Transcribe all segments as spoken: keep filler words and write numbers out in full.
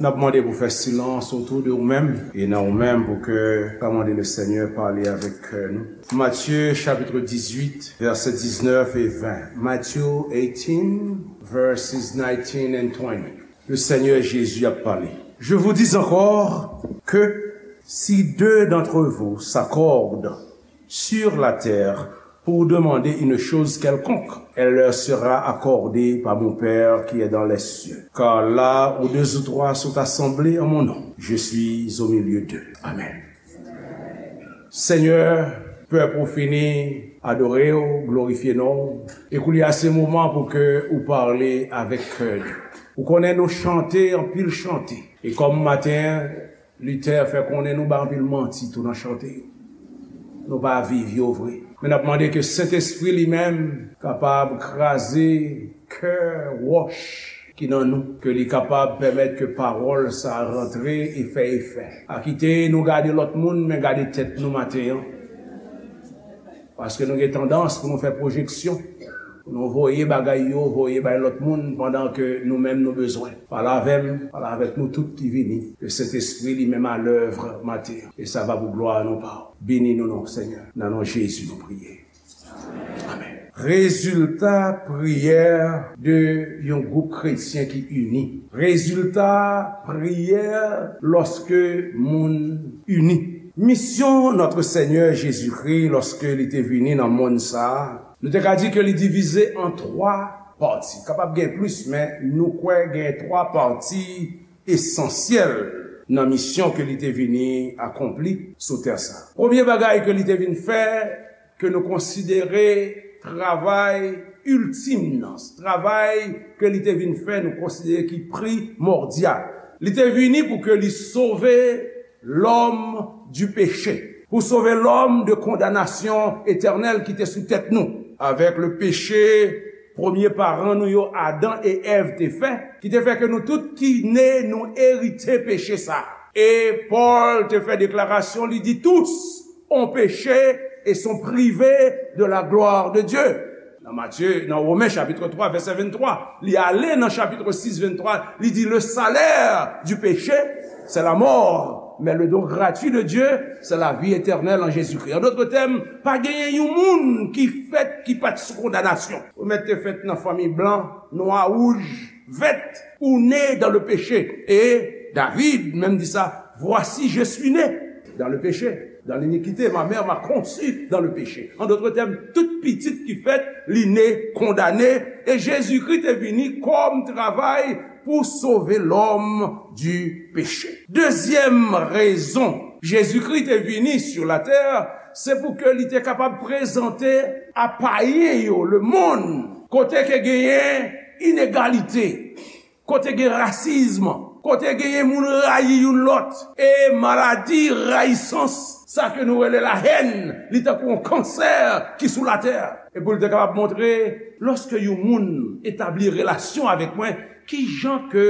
N ap mande pou fè silans otou de ou menm e nan ou menm pou ke ka mande le Seigneur pale avèk kè nou. Matthieu chapitre dix-huit, verset dix-neuf et vingt. Matthew eighteen, verses nineteen and twenty. Le Seigneur Jésus a parlé. Je vous dis encore que si deux d'entre vous s'accordent sur la terre pour demander une chose quelconque, elle leur sera accordée par mon Père qui est dans les cieux. Car là où deux ou trois sont assemblés en mon nom, je suis au milieu d'eux. Amen. Senyè, pèp ou fini adore w, glorifye non w. E koulye a se moman pou ke ou pale avèk kè nou. Ou konnen nou chante anpil chante. E kòm maten an, Luther fè konnen nou bay anpil manti tou nan chante yo. Nou pa viv yo vre. Men n ap mande ke Sentespri li menm kapab kraze kè wòch ki nan nou, ke li kapab pèmèt ke pawòl sa a rantre e fè efè. Pa kite nou gade lòt moun, men gade tèt nou maten an. Paske nou gen tandans pou nou fè pwojeksyon, pou nou voye bagay yo, voye bay lòt moun, pandan ke nou menm nou bezwen. Pale avè m, pale avèk nou tout ki vini, ke Sentespri li menm alèv maten an. E sa va pou glwa non pa w. Beni nou non, Senyè. Nan non Jezi nou priye. Amen. Rezilta priyè de yon gwoup kretyen ki ini. Rezilta priyè lòske moun ini. Misyon Notre Seigneur Jésus-Christ, lòske li te vini nan monn sa a, nou te ka di ke li divize an twa pati. Kapab gen plis, men nou kwè gen twa pati esansyèl nan misyon ke li te vini akonpli sou tè sa. Premye bagay ke li te vin fè, ke nou konsidere travay iltim nan, travay ke li te vin fè, nou konsidere ki primòdyal. Li te vini pou ke li sove lòm di peche, pou sove lòm de kondanasyon etènèl ki te sou tèt nou, avèk le peche, premye paran nou yo, Adan e Èv, te fè, ki te fè ke nou tout ki ne, nou erite peche sa. E Pòl te fè deklarasyon, li di, tous ont péché et sont privés de la gloire de Dieu. Nan Matye, nan Women chapit twa, vèsè venntwa, li ale nan chapit sis, venntwa, li di, le salaire du péché, c'est la mort, mais le don gratuit de Dieu, c'est la vie éternelle en Jésus-Christ. An dòt tèm, pa genyen yon moun ki fèt ki pa t sou kondanasyon. Ou mèt te fèt nan fanmi blan, nwa, wouj, vèt, ou né dans le péché. Et David menm di sa, voici, je suis né dans le péché, dans l'iniquité, ma mère m'a conçu dans le péché. An dòt tèm, tout pitit ki fèt, li ne kondane, e Jezikri te vini kòm travay pou sove lòm di peche. Dezyèm rezon Jezikri te vini sou latè, se pou ke li te kapab prezante a payen yo, le monde, kote ke genyen inegalite, kote gen rasism, kote genyen moun rayi youn lòt, e maladi rayisans, sa ke nou rele la haine, li tankou yon kansè ki sou latè. E pou l te kapab montre, lòske yon moun etabli relasyon avèk mwen, ki jan ke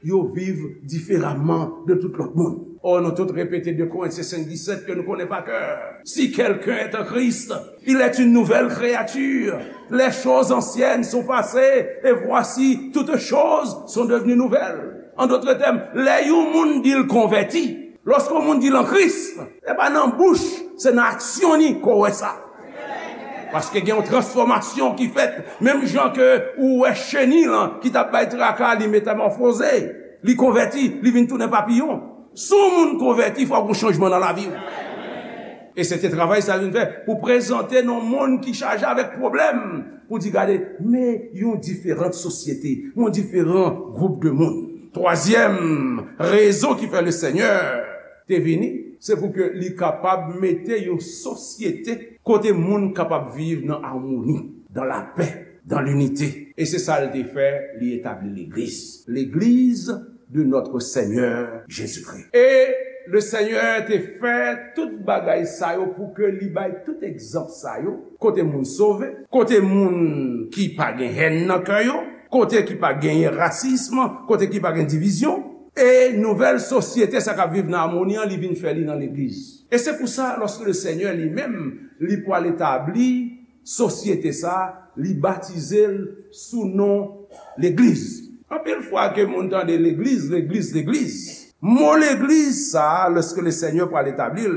yo viv diferaman de tout lòt moun. Ò, nou tout repete de Korentyen senk disèt ke nou konnen pa kè. Si quelqu'un est en Christ, il est une nouvelle créature. Les choses anciennes sont passées, et voici, toutes choses sont devenues nouvelles. An dòt tèm, lè yon moun di l konvèti, lòske yon moun di l an Kris, se pa nan bouch, se nan aksyon li ke w wè sa. Paske gen yon transfòmasyon ki fèt, menm jan ke ou wè cheni lan ki t ap bay traka, li metamòfoze, li konvèti, li vin tounen papiyon. Si w moun konvèti, fòk gon chanjman nan lavi w. E se te travay sa l vin fè, pou prezante nan yon monn ki chaje avèk pwoblèm, pou di, gade, men yon diferan sosyete, yon diferan gwoup de moun. Twazyèm rezon ki fè le Senyè te vini, se pou ke li kapab mete yon sosyete kote moun kapab viv nan amoni, dans la paix, dans l'unité. E se sa l te fè, li etabli legliz. Legliz de notre Seigneur Jésus-Christ. E le Senyè te fè tout bagay sa yo pou ke li bay tout egzanp sa yo, kote moun sove, kote moun ki pa gen hèn nan kè yo, kote ki pa genyen rasism, kote ki pa gen divizyon. E nouvèl sosyete sa k ap viv nan amoni an, li vin fè li nan legliz. E se pou sa, lòske le Senyè li menm, li pral etabli sosyete sa, li batize l sou non legliz. Anpil fwa ke moun tande legliz, legliz, legliz. Mo legliz sa, lòske le Senyè pral etabli l,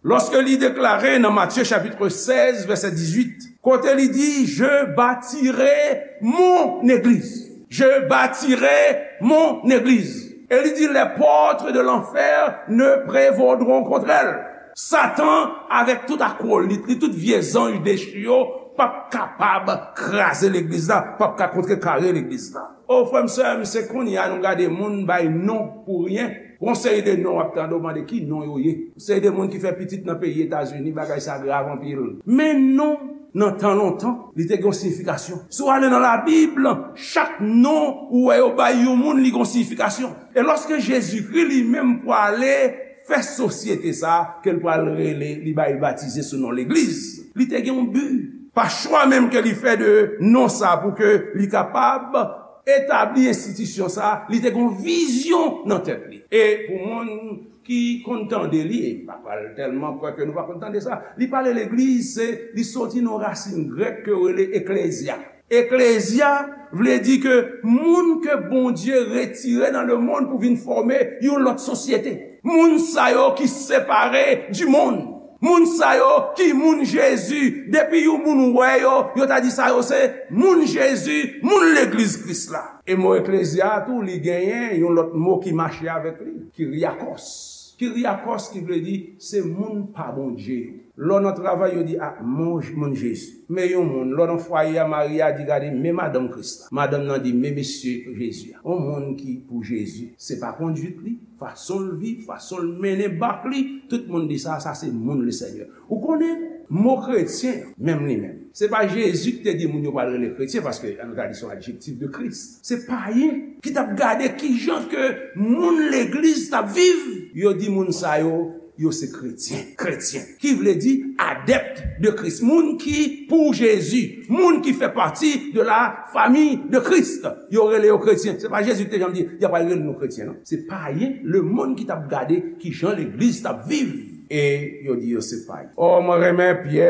lòske li deklare nan Matye chapit sèz, vèsè dizuit, kote li di, "Je bâtirai mon église. Je bâtirai mon église." E li di, "Les portes de l'enfer ne prévaudront contre elle." Satan, avèk tout akwolit li, tout vye zanj dechi yo, p ap kapab kraze legliz la, p ap ka kontrekare legliz la. O, frè m, sè m, se kounye a nou gade moun bay non pou ryen. Gon seri de non w ap tande, w mande ki non yo ye. Seri de moun ki fè pitit nan peyi Etazini, bagay sa grav anpil. Men non nan tan lontan, li te gen yon siyifikasyon. Si w ale nan Labib, chak non ou wè yo bay yon moun, li gen yon siyifikasyon. E lòske Jezikri li menm pwale fè sosyete sa ke l pral rele, li bay batize sou non legliz, li te gen yon bi. Pa chwa menm ke li fè de non sa pou ke li kapab etabli enstitisyon sa, li te gen yon vizyon nan tèt li. E pou moun ki konn tande li, e m pa pral tèlman kwè ke nou pa konn tande sa, li pale legliz, se, li soti nan rasin grèk ke yo rele eklezya. Eklezya vle di ke moun ke Bondye retire nan lemonn pou vin fòme yon lòt sosyete. Moun sa yo ki separe di monn. Moun sa yo ki moun Jezi. Depi yon moun wè yo, yo ta di sa yo se moun Jezi, moun legliz Kris la. E mo eklezya a tou, li genyen yon lòt mo ki mache avèk li, kyriakos. Kyriakos ki vle di se moun pa Bondye yo. Lè w nan travay, yo di, "A, mon, moun Jezi." Men yon moun, lè w nan fwaye a, mari a di, "Gade, men madanm Kris la." Madanm nan di, "Men mesye Jezi a." Yon moun ki pou Jezi, se pa konduit li, fason l viv, fason l mennen bak li, tout moun di sa, sa se moun Lesenyè. Ou konnen, mo kretyen, menm li menm, se pa Jezi ki te di moun yo pral rele kretyen, paske an nou ta di se yon adjektif de Kris. Se payen ki t ap gade kijan ke moun legliz t ap viv. Yo di moun sa yo, yo se kretyen. Kretyen, ki vle di adèpt de Kris. Moun ki pou Jezi. Moun ki fè pati de la famille de Christ. Yo rele yo kretyen. Se pa Jezi ki te janm di, y ap rele nou kretyen, non. Se payen, lemonn ki t ap gade kijan legliz t ap viv. E yo di yo se payen. O, mwen renmen Pyè,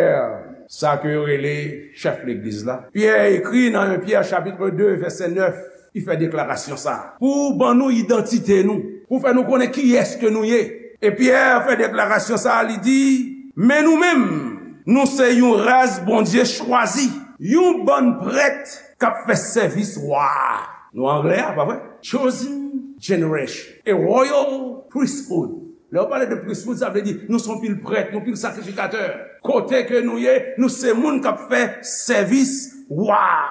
sa ke yo rele chèf legliz la. Pyè ekri nan en Pyè chapit de, vèsè nèf, li fè deklarasyon sa a. Pou ban nou idantite nou, pou fè nou konnen kiyès ke nou ye. E Pyè fè deklarasyon sa a, li di, "Men nou menm, nou se yon ras Bondye chwazi, yon bann prèt k ap fè sèvis wa a." Nou anglè a, pa vre? "Chosen generation, a royal priesthood." Lè yo pale de priesthood, sa vle di nou se yon pil prèt, yon pil sakrifikatè. Kote ke nou ye, nou se moun k ap fè sèvis wa a.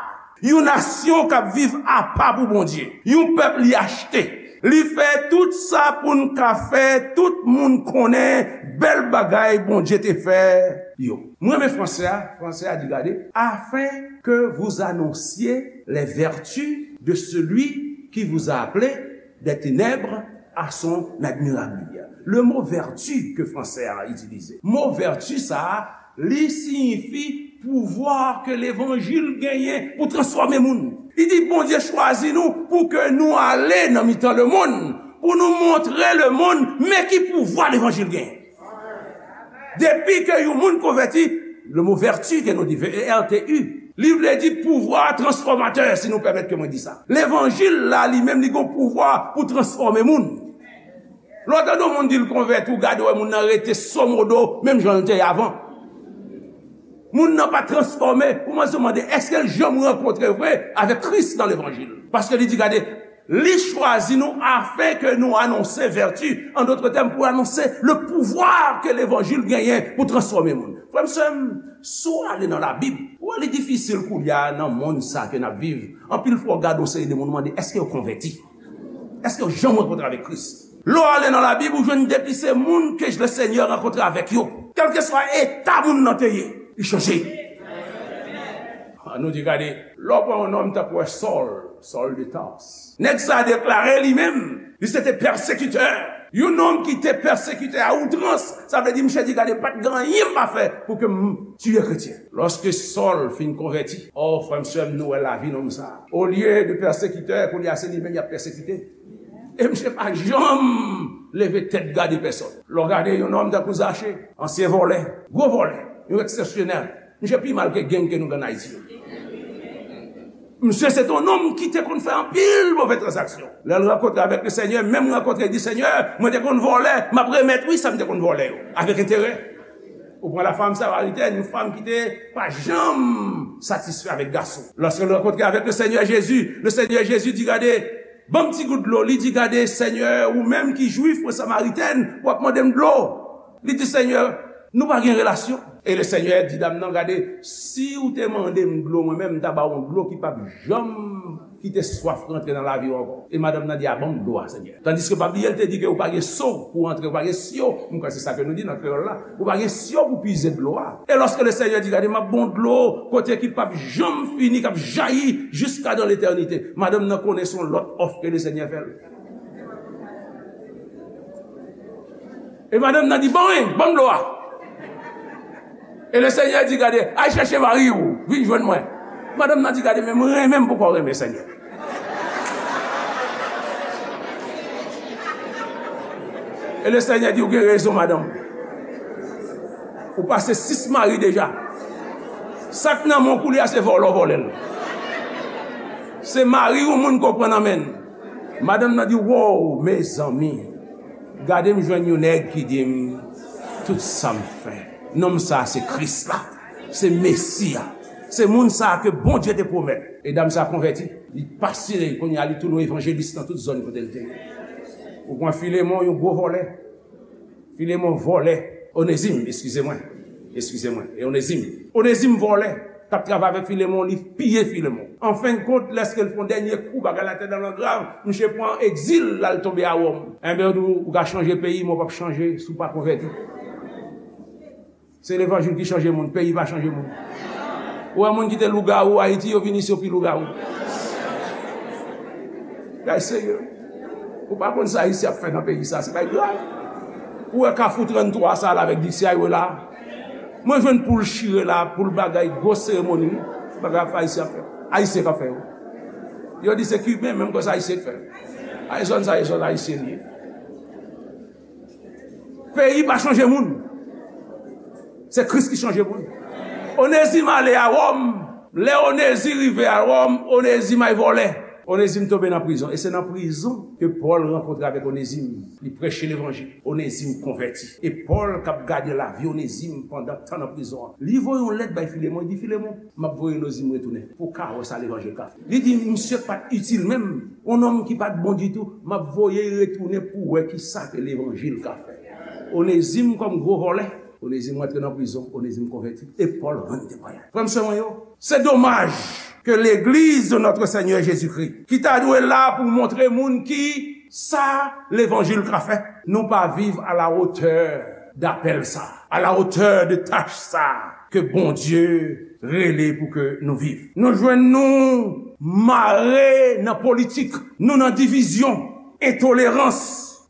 Yon nasyon k ap viv apa pou Bondye. Yon pèp li achte. Li fè tout sa pou n ka fè tout moun konnen bèl bagay Bondye te fè yo. Mwen renmen franse a, franse a di, gade, "Afin que vous annonciez les vertus de celui qui vous a appelé des ténèbres à son admirable lumière." Le mot vertu ke franse a itilize. Mo vertu sa a, li siyifi pouvwa ke levanjil genyen pou transfòme moun. Li di, Bondye chwazi nou pou ke nou ale nan mitan lemonn, pou nou montre lemonn men ki pouvwa levanjil genyen. Depi ke yon moun konvèti, le mo vertu ke nou di, V E R T U, li vle di pouvwa transfòmatè, si nou pèmèt ke mwen di sa. Levanjil la, li menm, li gen pouvwa pou transfòme moun. Lè w tande yon moun di l konvèti, ou gade, wè moun nan rete somodo, menm jan l te ye avan. Moun nan pa transfòme, ou mande, èske l janm rankontre vre avèk Kris nan levanjil? Paske li di, gade, li chwazi nou afin ke nou anonse vèti, an dòt tèm, pou anonse le pouvwa ke levanjil genyen pou transfòme moun. Frè m, sè m, si w ale nan Labib, ou wè li difisil kounye a nan monn sa ke n ap viv. Anpil fwa, w gade yon seri de moun, ou mande, èske yo konvèti? Èske yo janm rankontre avèk Kris? Lè w ale nan Labib, ou jwenn depi se moun ke Lesenyè rankontre avèk yo. Kèlkeswa eta moun nan te ye, li chanje. An nou di, gade, lè w pran yon nonm tankou Sòl, Sòl de Tars. Nèg sa a deklare li menm, li se te pèsekitè. Yon nonm ki te pèsekitè a outrans, sa vle di, misye di, gade, pa t gen anyen m pa fè pou ke m tiye kretyen. Lòske Sòl fin konvèti, o, frè m, sè m, nou wè lavi nonm sa a. Olye de pèsekitè, kounye a se li menm y ap pèsekite. E misye pa janm leve tèt gade pèsòn. Lè w gade yon nonm tankou Zache, ansyen vòlè, gwo vòlè, yon eksepsyonèl. Misye pi mal ke gang ke nou gen Ayiti yo. Misye se te yon nonm ki te konn fè anpil move tranzaksyon. Lè l rankontre avèk le Senyè, menm rankontre, li di, Senyè, mwen te konn vòlè, m ap remèt, wi, sa m te konn vòlè yo, avèk enterè. Ou pran la femme samaritaine, yon fanm ki te pa janm satisfè avèk gason. Lòske l rankontre avèk le Senyè Jezi, le Senyè Jezi di, gade, ban m ti gout dlo. Li di, gade, Senyè, ou menm ki jwif, mwen samaritèn, w ap mande m dlo. Li di, Senyè, nou pa gen relasyon. E le Senyè di dam nan, gade, si w te mande m dlo mwen menm, m ta ba w yon dlo ki p ap janm kite swaf rantre nan lavi w ankò. E madanm nan di, a, ban m dlo a, Senyè. Tandiske pa bliye, l te di ke ou pa gen so pou w antre, ou pa gen syo, m kwè se sa ke nou di nan kreyòl la, ou pa gen syo pou pize dlo a. E lòske le Senyè di, gade, m ap ba w dlo kote ki p ap janm fini, k ap jayi jiska dan letènite, madanm nan konnen se yon lòt òf ke le Senyè fè l. E madanm nan di, bon, wi, ban m dlo a. E le Senyè di, gade, al chèche mari w, vin jwenn mwen. Madanm nan di, gade, men mwen renmen m poko renmen Senyè. E le Senyè di, ou gen rezon, madanm. Ou pase sis mari deja. Sa k nan men w koulye a, se vòlè w vòlè l. Se mari yon moun ke w pran nan men l. Madanm nan di, wow, mezanmi, gade m jwenn yon nèg ki di m tout sa m fè. Nonm sa a se Kris la, se Mesi a, se moun sa a ke Bondye te pwomèt. E dam sa a konvèti, li pase, kounye a li tounen yon evanjelis nan tout zòn kote l te ye. Ou pran Filemon, yon gwo vòlè. Filemon vòlè. Onezim, eskize mwen. Eskize mwen. E Onezim. Onezim vòlè. T ap travay avèk Filemon, li piye Filemon. An fen de kont, lèske l fè yon dènye kou, bagay la te nan grav, misye pran egzil, l al tonbe a Wòm. Enben, yo di w, ou ka chanje peyi, men w p ap chanje si w pa konvèti. Se levanjil ki chanje moun, peyi pa chanje moun. Ou wè moun ki te lougawou Ayiti, yo vin isi, yo pi lougawou. Bagay serye. Ou pa konn sa Ayisyen ap fè nan peyi sa, se bagay grav. Ou wè Kafou tranntwa sa la avèk D C I yo la. Mwen jwenn poul chire la, poul bagay, gwo seremoni, wi. Bagay ap fè Ayisyen ap fè. Ayisyen k ap fè yo. Yo di se Kiben, menm konsa Ayisyen k fè. Ayisyen sa, Ayisyen, Ayisyen li ye. Peyi pa chanje moun. Se Kris ki chanje moun. Onezim ale a Wòm. Lè Onezim rive a Wòm, Onezim ay vòlè. Onezim tonbe nan prizon. E se nan prizon ke Pòl rankontre avèk Onezim. Li preche levanjil. Onezim konvèti. E Pòl k ap gade lavi Onezim pandan tan nan prizon an. Li voye yon lèt bay Filemon. Li di, Filemon, m ap voye Onezim retounen pou w ka wè sa levanjil ka fè. Li di, misye pa t itil menm. Yon nonm ki pa t bon ditou, m ap voye l retounen pou w wè ki sa ke levanjil ka fè. Onezim kòm gwo vòlè. Onezim rantre nan prizon, Onezim konvèti, e Pòl rann temwayaj. Frè m, sè mwen yo, se domaj ke legliz de notre Seigneur Jésus-Christ, ki ta dwe la pou montre moun ki sa levanjil ka fè, nou pa viv à la hauteur de apèl sa, à la hauteur de tach sa ke Bondye rele pou ke nou viv. Nou jwenn nou mare nan politik, nou nan divizyon, entolerans.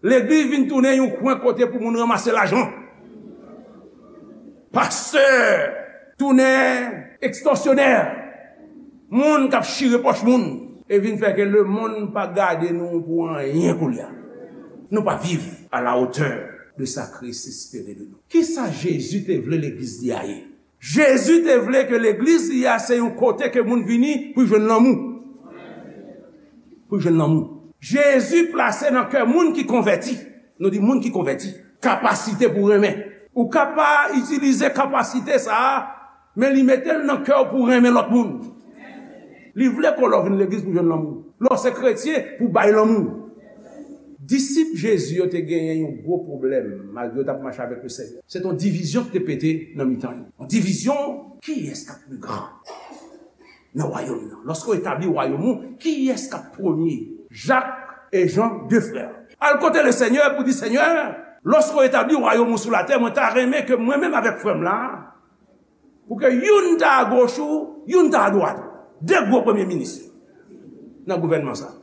Legliz vin tounen yon kwen kote pou moun ranmase lajan. Pastè tounen ekstòsyonè, moun k ap chire pòch moun, e vin fè ke lemonn pa gade nou pou anyen koulye a. Nou pa viv à la hauteur de sa Kris espere de nou. Kisa Jezi te vle legliz li a ye? Jezi te vle ke legliz li a se yon kote ke moun vini pou jwenn lanmou. Pou jwenn lanmou. Jezi plase nan kè moun ki konvèti, nou di moun ki konvèti, kapasite pou renmen. Ou ka pa itilize kapasite sa a, men li mete l nan kè w pou renmen lòt moun. Li vle ke lè w vin legliz pou jwenn lanmou. Lè w se kretyen, pou bay lanmou. Disip Jezi yo te genyen yon gwo pwoblèm, malgre yo t ap mache avèk le Senyè. Se t yon divizyon ki te pete nan mitan yo. Yon divizyon, kiyès k ap pi gran nan wayòm nan? Lòske w etabli wayòm ou, kiyès k ap premye? Jak e Jan, de frè. Al kote le Senyè pou di, Senyè, lòske w etabli wayòm ou sou latè, mwen ta renmen ke mwen menm avèk frè m la, pou ke youn ta agoch ou, youn ta adwat ou. De gwo premye minis nan gouvènman sa.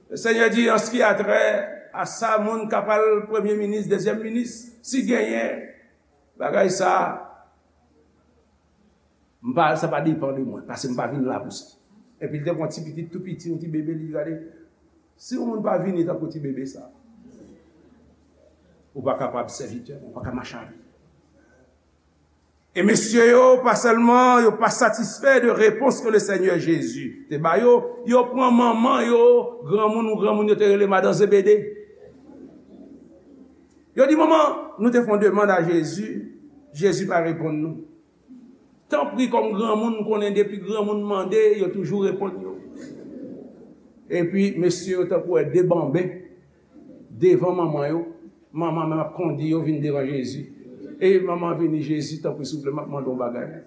Le Senyè di, an ce qui a trait à sa, moun k ap al premye minis, dezyèm minis, si genyen bagay sa, m pa, sa pa depann de mwen, paske m pa vin la pou sa. Epi l te pran ti pitit tou piti, yon ti bebe, li di, gade, si yon moun pa vini tankou ti bebe sa, ou pa kapab sèvitè, ou pa ka mache avè l. E mesye yo, pa sèlman yo pa satisfè de repons ke le Senyè Jezi te ba yo, yo pran manman yo, granmoun ou granmoun yo te rele madan Zebede. Yo di, "Manman, nou te fè yon demann a Jezi, Jezi pa reponn nou." Tanpri, kòm granmoun, m konnen depi granmoun mande, yo toujou reponn yo. Epi, mesye yo tankou wè de banben devan manman yo. Manman menm ap kondi yo vin devan Jezi. E manman vini, "Jezi, tanpri, souple, m ap mande yon bagay.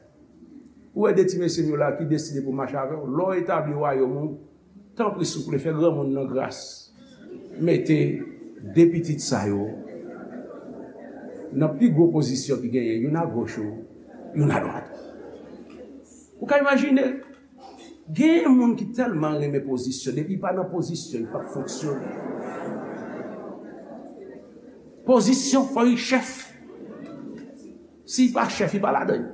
Ou wè de ti mesye m yo la ki deside pou mache avè w? Lè w etabli wayòm ou, tanpri, souple, fè granmoun nan gras mete de pitit sa yo nan pi gwo pozisyon ki genyen, youn agoch ou, youn adwat." Ou ka imajine, gen moun ki tèlman renmen pozisyon, depi li pa nan pozisyon, li p ap fonksyone. Pozisyon, fò li chèf. Si li pa chèf, li pa ladan l.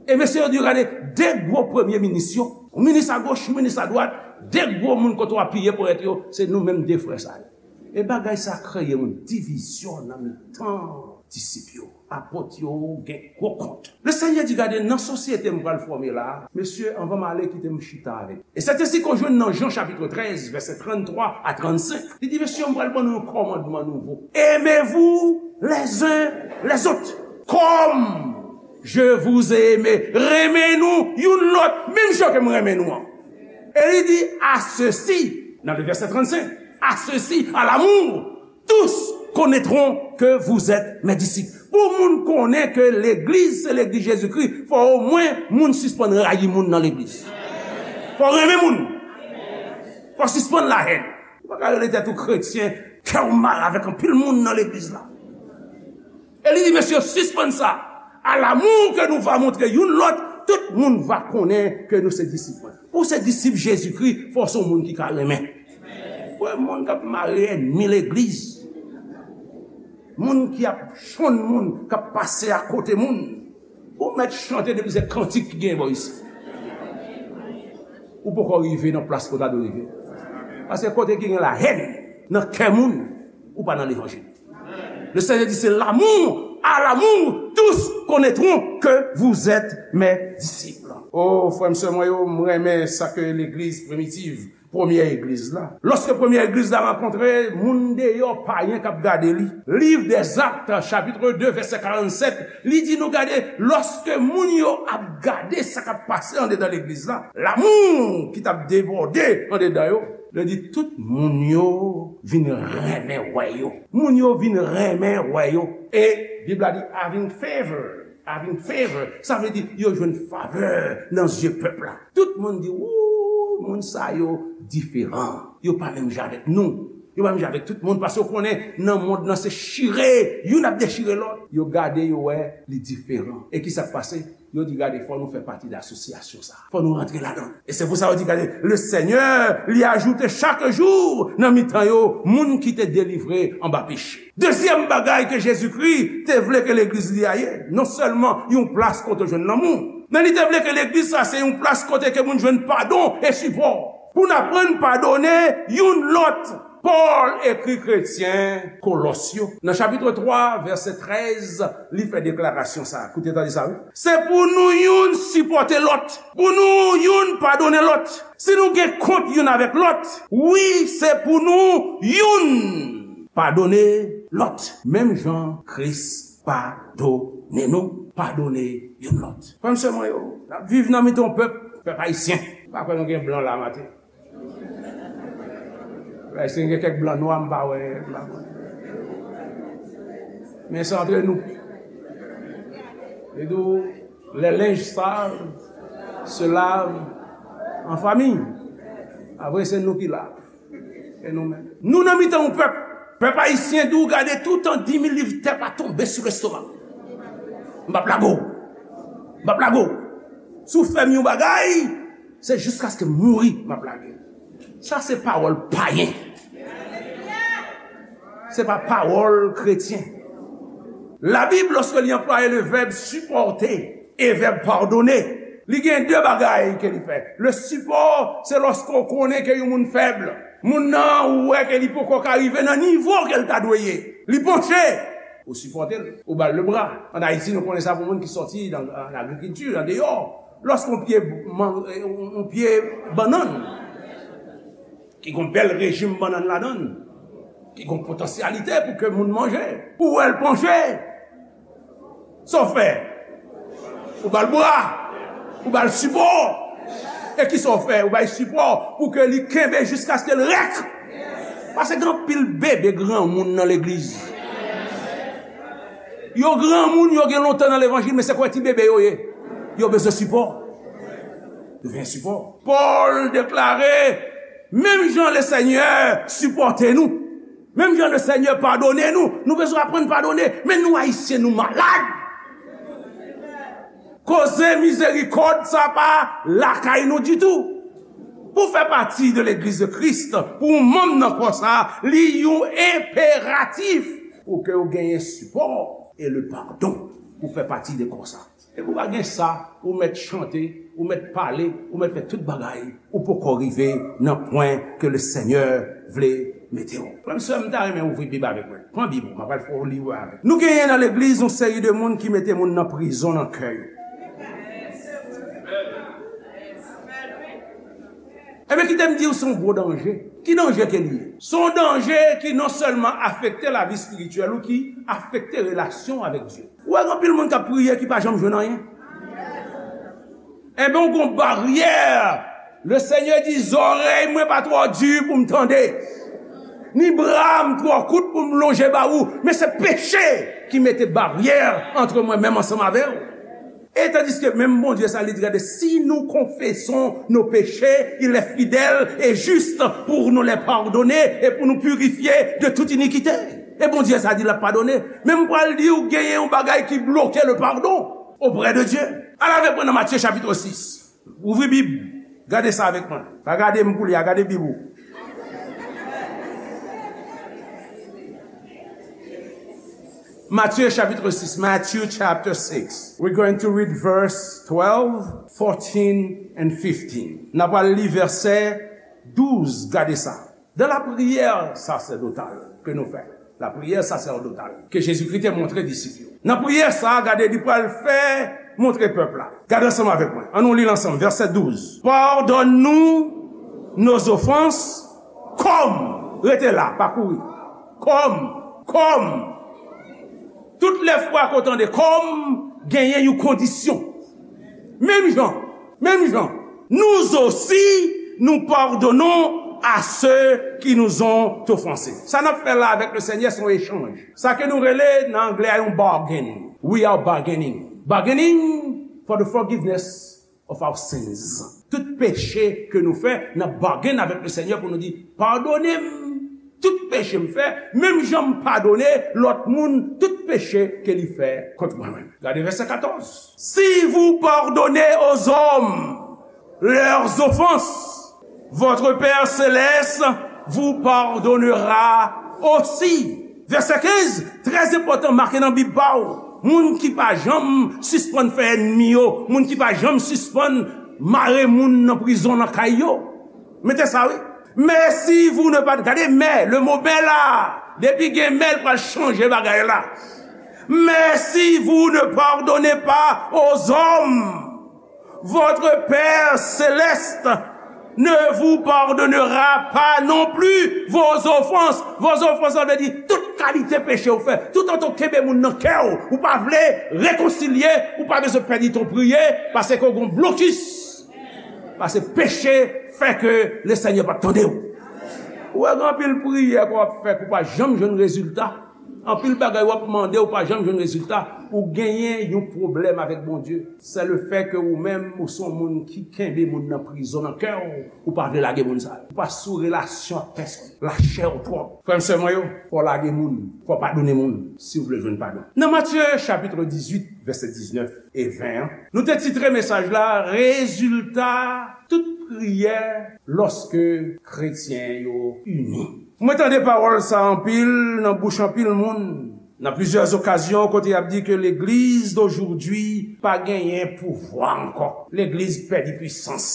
E mesye yo di, "Gade, de gwo premye minis yo, yon minis agoch, yon minis adwat, de gwo moun kote w apiye pou èt yo, se nou menm de frè sa yo." E bagay sa kreye yon divizyon nan mitan disip yo. Apot yo gen gwo kont. Le Senyè di, "Gade, nan sosyete m pral fòme la, mesye, anvan m ale, kite m chita avèk." E sèt ensi ke w jwenn nan Jan chapit trèz, vèsè tranntwa a trannsenk. Li di, "Mesye, m pral ban nou yon kòmandman nouvo. Aimez-vous les uns les autres. Comme je vous ai aimé." Renmen nou youn lòt, menm jan ke m renmen nou an. E li di, "À ceci", nan le vèsè trannsenk, "à ceci, à l'amour, tous connaîtront que vous êtes mes disciples." Pou moun konnen ke legliz se legliz Jezikri, fò omwen moun sispann rayi moun nan legliz. Fò renmen moun. Fò sispann lahèn. Ou pa ka rele tèt ou kretyen, kè w mal avèk anpil moun nan legliz la. E li di, "Mesye, sispann sa. À l'amour que nous va montrer youn lòt, tout moun va konnen ke nou se disip mwen." Pou se disip Jezikri, fò se yon moun ki ka renmen. Wè, moun k ap mare ènmi legliz, moun ki ap chonn moun, k ap pase akote moun. Ou mèt chante depi se kantik ki gen bò isi. Ou poko rive nan plas ke w ta dwe rive. Paske kote ki gen lahèn nan kè moun, ou pa nan levanjil. Le Seigneur dit, c'est l'amour, à l'amour, tous connaîtront que vous êtes mes disciples. Oh, frè m, sè mwen yo, m renmen sa ke legliz primitiv, premyè egliz la. Lòske premyè egliz la rankontre moun deyò, payen k ap gade li. Liv dèzak, chapit de, vèsè karannsèt, li di nou gade, lòske moun yo ap gade sa k ap pase andedan legliz la, lamou ki t ap debòde andedan yo, li di tout moun yo vin renmen wè yo. Moun yo vin renmen wè yo. E Bib la di, having favor, having favor, sa vle di yo jwenn favè nan zye pèp la. Tout moun di, "Wou, moun sa yo diferan. Yo pa menm jan avèk nou. Yo pa menm jan avèk tout moun." Paske yo konnen nan mond nan se chire, youn ap dechire lòt. Yo gade, yo wè li diferan. E ki sa k pase? Yo di, "Gade, fò nou fè pati de asosyasyon sa. Fò nou rantre ladan." E se pou sa yo di, "Gade, le Seigneur li ajoute chaque jour nan mitan yo moun ki te delivre anba peche." Dezyèm bagay ke Jezikri te vle ke legliz li a ye, non sèlman yon plas kote w jwenn lanmou, men li te vle ke legliz sa se yon plas kote ke moun jwenn padon e sipò. Pou n aprann padone youn lòt. Pòl ekri kretyen Kolòs yo. Nan chapit twa, vèsè trèz, li fè deklarasyon sa. Koute, tande sa, wi. Se pou nou youn sipòte lòt, pou nou youn padone lòt. Si nou gen kont youn avèk lòt, wi, se pou nou youn padone lòt. Menm jan Kris padone nou, padone youn lòt. Frè m, sè mwen yo, n ap viv nan mitan yon pèp, pèp ayisyen. Pa kwè nou gen blan la maten. Wè, si gen kèk blan nwa, m pa wè, m pa konn. Men se antre nou. Li di w, les linges sales se lavent en famille. Apre, se nou ki la. E nou menm. Nou nan mitan yon pèp. Pèp ayisyen di w gade toutan di mil liv tè pa tonbe sou lestomak. M p ap lage w. M p ap lage w. Si w fè m yon bagay, se jiskaske m mouri, m ap lage. Sa se pawòl payen. Se pa pawòl kretyen. Labib, lòske li anplwaye le vèb sipòte e vèb padone, li gen de bagay ke li fè. Le sipò, se lòske w konnen ke yon moun fèb. Moun nan, ou wè ke li poko ka rive nan nivo ke l ta dwe ye. Li panche. Ou sipòte l, ou ba l lebra. Ann Ayiti, nou konnen sa pou moun ki sòti nan, nan agrikilti, nan deyò. Lòske yon pye, man, yon, yon pye bannann, ki gen yon bèl rejim bannann ladan l, ki gen yon potansyalite pou ke moun manje, ou wè l panche, sa w fè? Ou ba l bra, ou ba l sipò. E kisa w fè? Ou bay sipò pou ke li kenbe jiskaske l rèk. Paske gen anpil bebe granmoun nan legliz. Yo granmoun, yo gen lontan nan levanjil, men se kwè ti bebe yo ye. Yo bezwen sipò. Yo bezwen sipò. Pòl deklare, menm jan Lesenyè sipòte nou, menm jan Lesenyè padone nou, nou bezwen aprann padone. Men nou Ayisyen, nou malad. Koze mizerikòd sa pa lakay nou ditou. Pou fè pati de legliz de Kris, pou w manm nan kò sa, li yon enperatif pou ke w genyen sipò e le padon pou fè pati de kò sa. E pou w pa gen sa, ou mèt chante, ou mèt pale, ou mèt fè tout bagay, ou poko rive nan pwen ke Lesenyè vle mete w. Frè m, sè m, m ta renmen ouvri Bib avèk mwen. Pran Bib ou, m ap al fè w li avèk. Nou genyen nan legliz yon seri de moun ki mete moun nan prizon nan kè yo. Ebyen, kite m di w, se yon gwo danje. Ki danje ke li ye? Se yon danje ki non sèlman afekte lavi espirityèl ou, ki afekte relasyon avèk Dye. Ou wè, gen anpil moun k ap priye ki pa janm jwenn anyen. Ebyen, ou gon baryè. Lesenyè di, zòrèy mwen pa twò di pou m tande, ni bra m twò kout pou m lonje ba ou, men se peche ki mete baryè ant mwen menm ansanm avè w. E tandiske menm Bondye sa, li di, gade, si nous confessons nos péchés, il est fidèle et juste pour nous les pardonner et pour nous purifier de toute iniquité. E Bondye sa di l ap padone. Men m pral di w, genyen yon bagay ki bloke le pardon auprès de Dieu. Al avèk mwen nan Matye chapit sis. Ouvri Bib. Gade sa avèk mwen. Pa gade m koulye a, gade Bib ou. Matye chapit sis. Matthew chapter six. We're going to read verse twelve, fourteen, and fifteen. N ap al li vèsè douz, gade sa. Dans la prière sacerdotale que nous faisons, la prière sacerdotale que Jésus-Christ te montre disip yo. Nan priyè sa a, gade, li pral fè montre pèp la. Gade ansanm avèk mwen. Ann nou li l ansanm. Vèsè douz. Pardonne-nous nos offenses comme. Rete la, pa kouri. Comme. Comme. Tout lè fwa ke w tande comme, genyen yon kondisyon. Menm jan, menm jan, nous aussi, nous pardonnons à ceux qui nous ont offensés. Sa n ap fè la avèk Lesenyè, se yon echanj. Sa ke nou rele nan anglè a yon bargain. We are bargaining. Bargaining for the forgiveness of our sins. Tout peche ke nou fè, n ap bargain avèk Lesenyè pou nou di, padone m tout peche m fè, menm jan m padone lòt moun tout peche ke li fè kont mwen menm. Gade vèsè katòz. Si vous pardonnez aux hommes leurs offenses, votre Père céleste vous pardonnera aussi. Vèsè kenz, trè enpòtan, make nan Bib pa w. Moun ki pa janm sispann fè ènmi yo, moun ki pa janm sispann mare moun nan prizon nan kay yo. Mete sa, wi. Mais si vous ne pardonnez, gade mais, le mot mais la, depi gen mais, l pral chanje bagay la. Mais si vous ne pardonnez pas aux hommes, votre Père céleste ne vous pardonnera pas non plus vos offenses. Vos offenses, sa vle di tout kalite peche ou fè. Toutan w kenbe moun nan kè w, ou pa vle rekonsilye, ou pa bezwen pèdi tan w priye, paske w gon blokis. Paske peche fè ke Lesenyè p ap tande w. Ou wè, gen anpil priyè ke w ap fè ke w pa janm jwenn rezilta. Anpil bagay w ap mande, ou pa janm jwenn rezilta. Ou genyen yon pwoblèm avèk Bondye. Se le fè ke ou menm, ou se yon moun ki kenbe moun nan prizon nan kè w. Ou pa vle lage moun sa yo. Ou pa sou relasyon ak pèsonn. Lachè w twòp. Frè m, sè mwen yo, fò w lage moun. Fò w padone moun si w vle jwenn padon. Nan Matye chapit dizuit, vèsè diznèf e ven an, nou te titre mesaj la, rezilta tout priyè lòske kretyen yo ini. Mwen tande pawòl sa anpil nan bouch anpil moun. Nan plizyè okazyon, kote y ap di ke legliz d'aujourd'hui pa genyen pouvwa ankò. Legliz pèdi pwisans.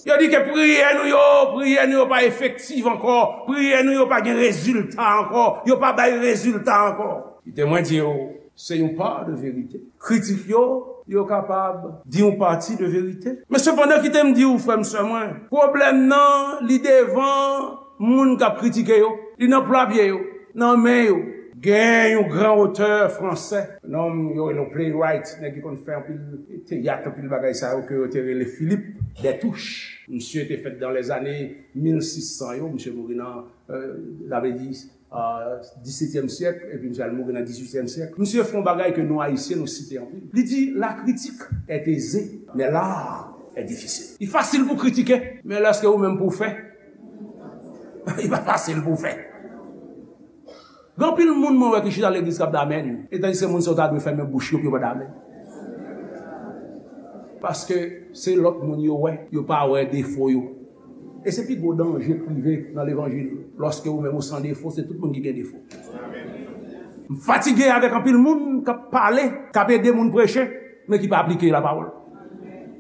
Yo di ke priyè nou yo, priyè nou yo pa efektiv ankò. Priyè nou yo pa gen rezilta ankò. Yo pa bay rezilta ankò. Kite mwen di w, se yon pa de verite. Kritik yo, yo kapab di yon pati de verite. Men sepandan, kite m di w, frè m, sè mwen, pwoblèm nan, li devan moun k ap kritike yo. Li nan pla pye yo, nan men yo. Gen yon gran otè fransè, nonm yo rele yon playwright, nèg ki konn fè anpil teyat, anpil bagay sa yo, ke yo te rele Philippe Destouches. Misye te fèt dans les années mil sis san yo, misye mouri nan, euh, sa vle di, euh, disetyèm syèk, epi misye al mouri nan dizuityèm syèk. Misye fè yon bagay ke nou Ayisyen, nou site anpil. Li di, la critique est aisée, mais l'art est difficile. Li fasil pou kritike, men lèske ou menm pou fè, li pa fasil pou fè. Gen anpil moun mwen wè ki chita legliz k ap damèn, etandiske moun sa yo ta dwe fèmen bouch yo pou yo pa damèn. Paske se lòt moun yo wè, yo pa wè defo yo. E se pi gwo danje k rive nan levanjil. Lòske ou menm ou san defo, se tout moun ki gen defo. M fatige avèk anpil moun k ap pale, k ap ede moun preche, men ki pa aplike lapawòl.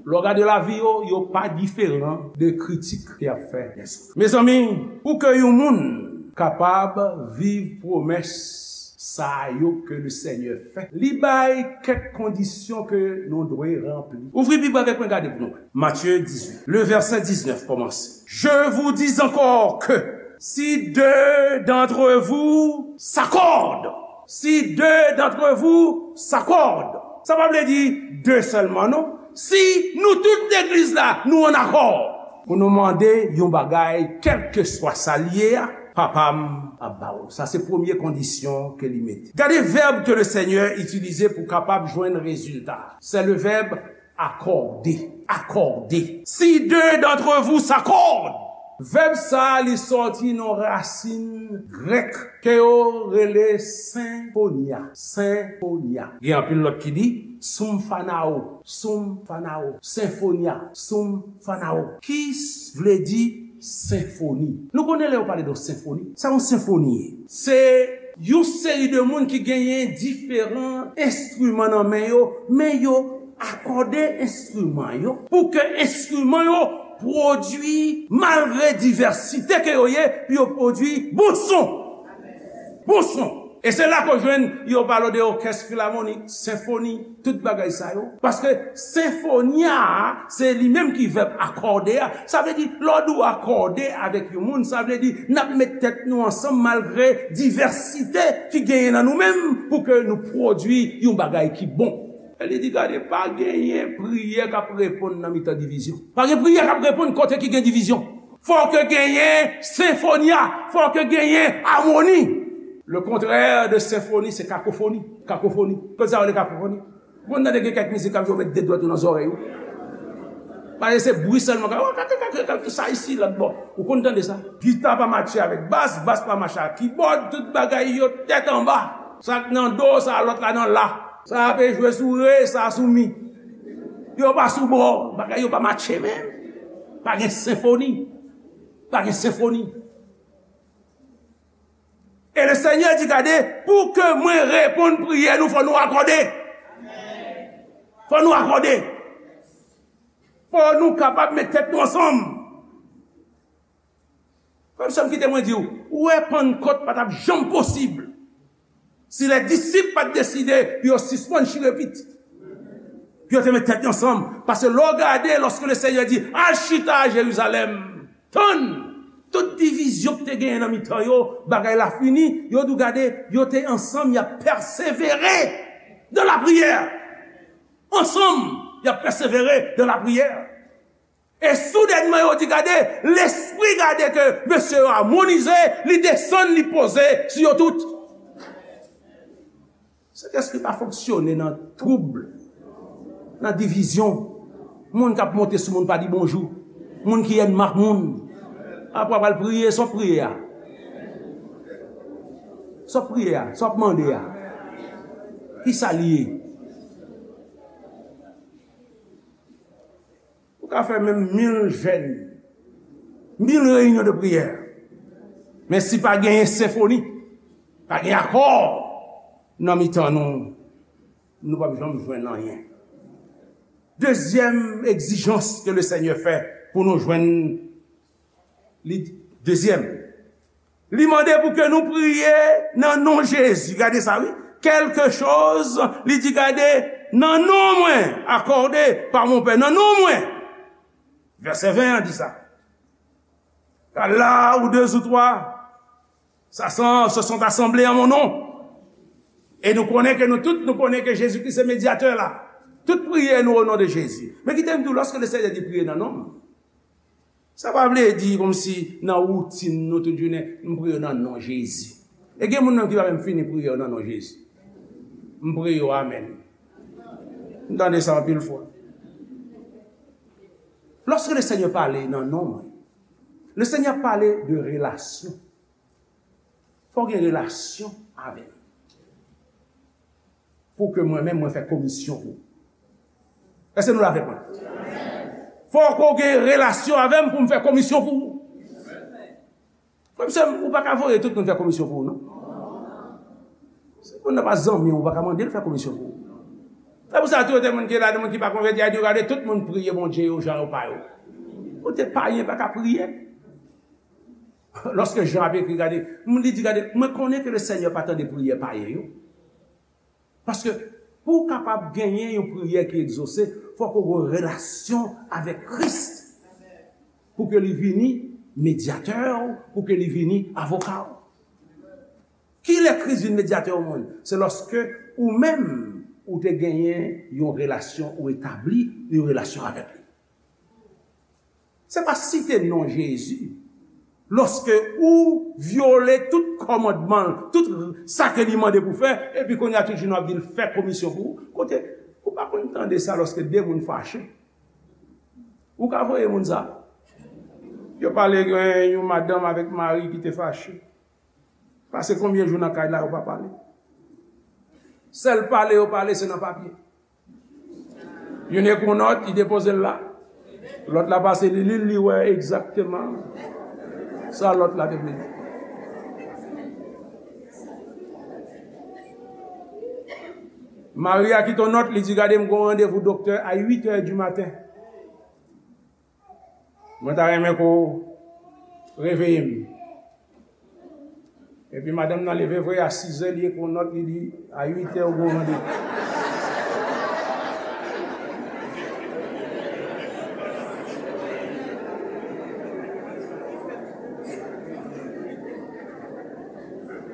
Lè w gade lavi yo, yo pa diferan de kritik ke y ap fè dèzòt. Mezanmi, pou ke yon moun kapab viv pwomès sa yo ke le Senyè fè, li bay kèk kondisyon ke nou dwe ranpli. Ouvri Bib avèk mwen, gade pou nou wè. Matthieu dix-huit, le verset dix-neuf kòmanse. Je vous dis encore que si deux d'entre vous s'accordent, si deux d'entre vous s'accordent, sa pa vle di de sèlman, non. Si nou tout legliz la, nou an akò pou nou mande yon bagay, kèlkeswa sa l ye a, Papa m ap ba w. Sa se premye kondisyon ke li mete. Gade vèb ke le Senyè itilize pou kapab jwenn rezilta. Se le vèb accordé. Accordé. Si deux d'entre vous s'accordent. Vèb sa a, li sòti nan rasin grèk ke yo rele senfonia. Senfonia. Gen anpil lòt ki di soumfanao, soumfanao, senfonia, soumfanao. Ki s-, vle di senfoni. Nou konnen lè yo pale de senfoni, sa yon senfoni ye. Se yon seri de moun ki genyen diferan enstriman nan men yo, men yo akòde enstriman yo pou ke enstriman yo pwodui, malgre divèsite ke yo ye, pou yo pwodui bon son. Bon son. E se la ke w jwenn yo pale de òkès filamonik, senfoni, tout bagay sa yo. Paske senfonia a, se li menm ki vèb akòde a. Sa vle di, lè w di w akòde avèk yon moun, sa vle di, n ap met tèt nou ansanm malgre divèsite ki genyen nan nou menm pou ke nou pwodui yon bagay ki bon. E li di, gade, pa genyen priyè k ap reponn nan mitan divizyon. Pa gen priyè k ap reponn kote ki gen divizyon. Fò ke genyen senfonia, fò ke genyen amoni. Le contraire de senfoni, se kakofoni. Kakofoni. Konn sa yo rele kakofoni? Ou konn tande gen kèk mizik k ap jwe, yo met de dwèt yo nan zòrèy ou. Paske se bri sèlman k ap, oh, kake, kake, kake, sa isi, lòt bò. Ou konn tande sa? Gita pa matche avèk bas, bas pa matche ak kibòd, tout bagay yo tèt anba. Sa k nan do, sa lòt la nan la. Sa a pe jwe sou re, sa sou mi. Yo pa sou bò, bagay yo pa matche menm. Pa gen senfoni. Pa gen senfoni. E le Senyè di, gade, pou ke mwen reponn priyè nou, fò nou akòde. Fò nou akòde. Fò nou kapab met tèt nou ansanm. Frè m, sè m, kite mwen di w, ou wè Pannkòt pa t ap janm posib si lè disip pa t deside pou yo sispann chire pit. Pou yo te met tèt yo ansanm. Paske lè w gade, lòske le Senyè di, al chita a Jerizalèm, tann, tout divizyon ki te genyen nan mitan yo, bagay la fini, yo di w gade, yo te ansanm, y ap pèsevere dans la prière. Ansanm, y ap pèsevere dans la prière. E soudènman, yo di, gade, lespri gade ke mesye yo amonize, li desann, li poze sou yo tout. Sentespri pa fonksyone nan twoub, nan divizyon. Moun k ap monte sou moun pa di bonjou. Moun ki ènmi ak moun. Apre w ap al priye, sa w ap priye a? Sa w ap priye a? Sa w ap mande a? Kisa l ye? Ou ka fè menm mil jèn, mil reyinyon de priyè. Men si pa genyen senfoni, pa gen akò nan mitan nou, nou p ap janm jwenn anyen. Dezyèm egzijans ke le Senyè fè pou nou jwenn, li, dezyèm, li mande pou ke nou priye nan non Jezi. Gade sa, wi. quelque chose, li di, gade, nan non mwen, accordé par mon Père, nan non mwen. Vèsè ven an di sa. Car là où deux ou trois s'assemblent, se sont assemblés en mon nom. E nou konnen ke nou tout, nou konnen ke Jezi Kris se medyatè la. Tout priyè nou o non de Jezi. Men kite m di w, lòske le Senyè di priye nan non m, sa pa vle di kòmsi nan woutin nou tout jounen, m priye nan non Jezi. E gen moun nan ki pa menm fini priye yo nan non Jezi. M priye yo amèn. M tande sa anpil fwa. Lòske le Senyè pale nan non mwen, le Senyè pale de relasyon. Fò w gen relasyon avè m. Pou ke mwen menm, mwen fè komisyon pou ou. Èske nou la avèk mwen? Fò ke w gen relasyon avè m pou m fè komisyon pou ou. Frè m, sè m, ou pa ka voye tout moun fè komisyon pou ou, non. Si moun nan pa zanmi w, ou pa ka mande l fè komisyon pou ou. Se pou sa tou, gen moun ki la, gen moun ki pa konvèti, a di, gade, tout moun priye Bondye yo, jan yo pa yo. Kote payen pa ka priye. Lòske Jan ap ekri, gade, li di, gade, mwen konnen ke le Senyè pa tande priyè payen yo. Paske pou w kapab genyen yon priyè ki egzose, fòk ou gen relasyon avèk Kris. Pou ke li vini medyatè w, pou ke li vini avoka w. Kilè Kris vin medyatè w, moun? Se lòske ou menm, ou te genyen yon relasyon, ou etabli yon relasyon avèk li. Se pa site non Jezi. Lòske ou vyole tout kòmandman l, tout sa ke li mande pou fè, epi kounye a tout jounen w ap di l fè komisyon pou ou. Kote, ou pa konn tande sa lòske de moun fache? Ou ka voye moun sa? Yo pale gen yon madanm avèk mari ki te fache. Pase konbyen jou nan kay la, yo pa pale? Sèl pale yo pale, se nan papye. Youn ekri yon nòt, li depoze l la. Lòt la pase li li l, li wè egzakteman sa lòt la te vle di. Mari a kite yon nòt, li di, gade, m gen yon randevou doktè a uit è di maten. Mwen ta renmen ke w reveye m. Epi madanm nan leve vre a sizè, li ekri yon nòt, li di, a uit è ou gen yon randevou.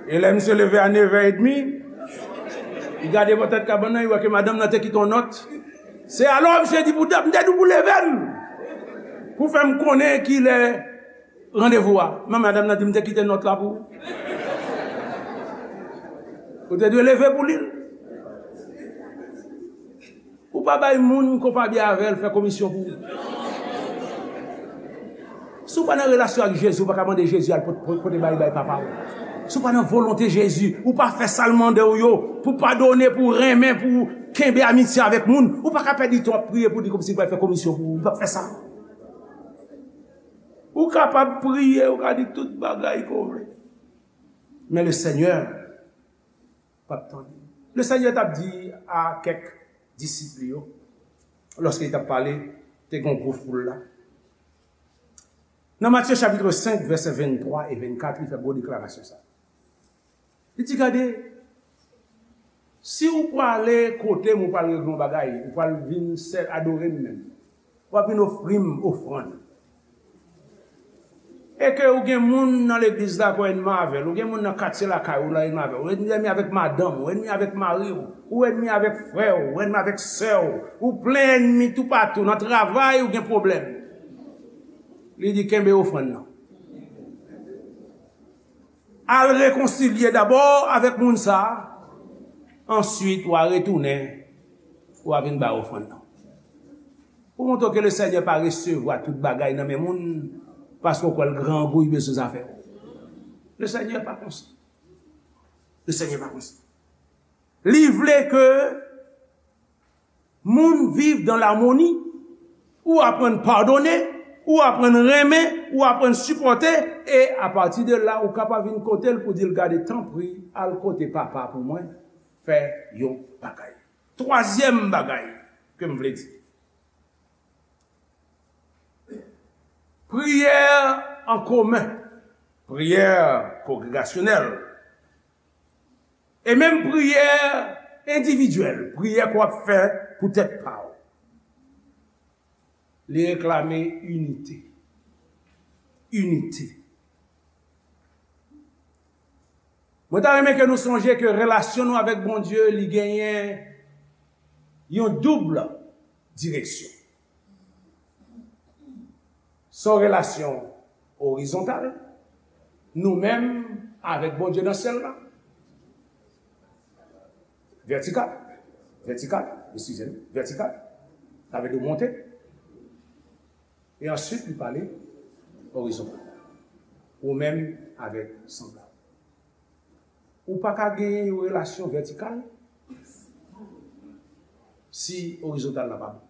E lè misye leve a nevè edmi, li gade bò tèt kabann nan, li wè ke madanm nan te kite yon nòt. Se alò misye di, pou dat, m te di w pou leve m, pou fè m konnen kilè randevou a. Men madanm nan di, m te kite nòt la pou ou. Ou te dwe leve pou li l. Ou pa bay moun ke w pa byen avè l fè komisyon pou ou. Si w pa nan relasyon ak Jezi, ou pa ka mande Jezi al pot-, pot-, pote bagay bay papa w. Si w pa nan volonte Jezi, ou pa fè sa l mande w yo, pou padone, pou renmen, pou kenbe amitye avèk moun, ou pa ka pèdi tan w ap priye pou li kòmsi l pral fè komisyon pou ou. Ou p ap fè sa. Ou kapab priye, ou ka di tout bagay ke w vle. Men le Senyè p ap tande. Le Senyè t ap di a kèk disip li yo, lòske li t ap pale, te gen yon gwo foul la. Nan Matye chapit senk, vèsè venntwa e vennkat, li fè gwo deklarasyon sa. Li di, gade, si w prale kote m, ou pral regle yon bagay, ou pral vin sèl adore m menm, w ap vin ofri m ofrann. E ke ou gen moun nan legliz la ke w ènmi avè l, ou gen moun nan katye lakay ou la ènmi avè l, ou ènmi avèk madanm ou, ou ènmi avèk mari w, ou ènmi avèk frè w, ou ènmi avèk sè w, ou plen ènmi toupatou, nan travay ou gen pwoblèm. Li di, kenbe ofrann nan. Al rekonsilye dabò avèk moun sa a, answit w a retounen, w a vin bay ofrann nan. Pou montre w ke le Senyè pa resevwa tout bagay nan men moun, paske w kwè l grangou, li bezwen zafè w. Le Senyè pa konsa. Le Senyè pa konsa. Li vle ke moun viv dan lamoni, ou aprann padone, ou aprann renmen, ou aprann sipòte, e apati de la, ou kapab vin kote l pou di l, gade, tanpri, al kote papa pou mwen, fè yon bagay. Twazyèm bagay ke m vle di. Priyè an komen, priyè kongregasyonèl. E menm priyè endividyèl, priyè ke w ap fè pou tèt pa w, li reklame inite. Inite. Mwen ta renmen ke nou sonje ke relasyon nou avèk Bondye, li genyen yon doub direksyon. Se yon relasyon orizontal, nou menm avèk Bondye nan syèl la. Vètikal. Vètikal, eskize m, vètikal. Sa vle di w monte. E answit, li pale orizontal. Ou menm avèk sanblab. Ou pa ka genyen yon relasyon vètikal si orizontal la pa bon.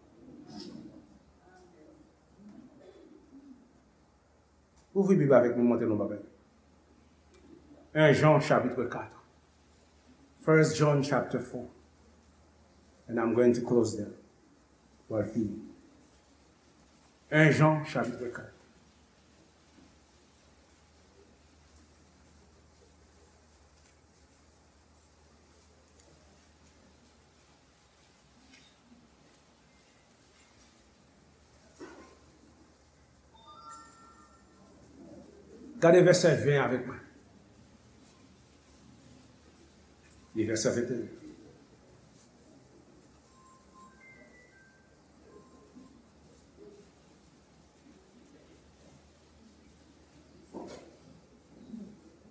Ouvri Bib avèk mwen, montre nou bagay. En Jan, chapitre quatre. First John, chapter four. And I'm going to close there. Mwen fini. En Jan, chapitre quatre. Gade vèsè ven avèk mwen. Li vèsè venteyen.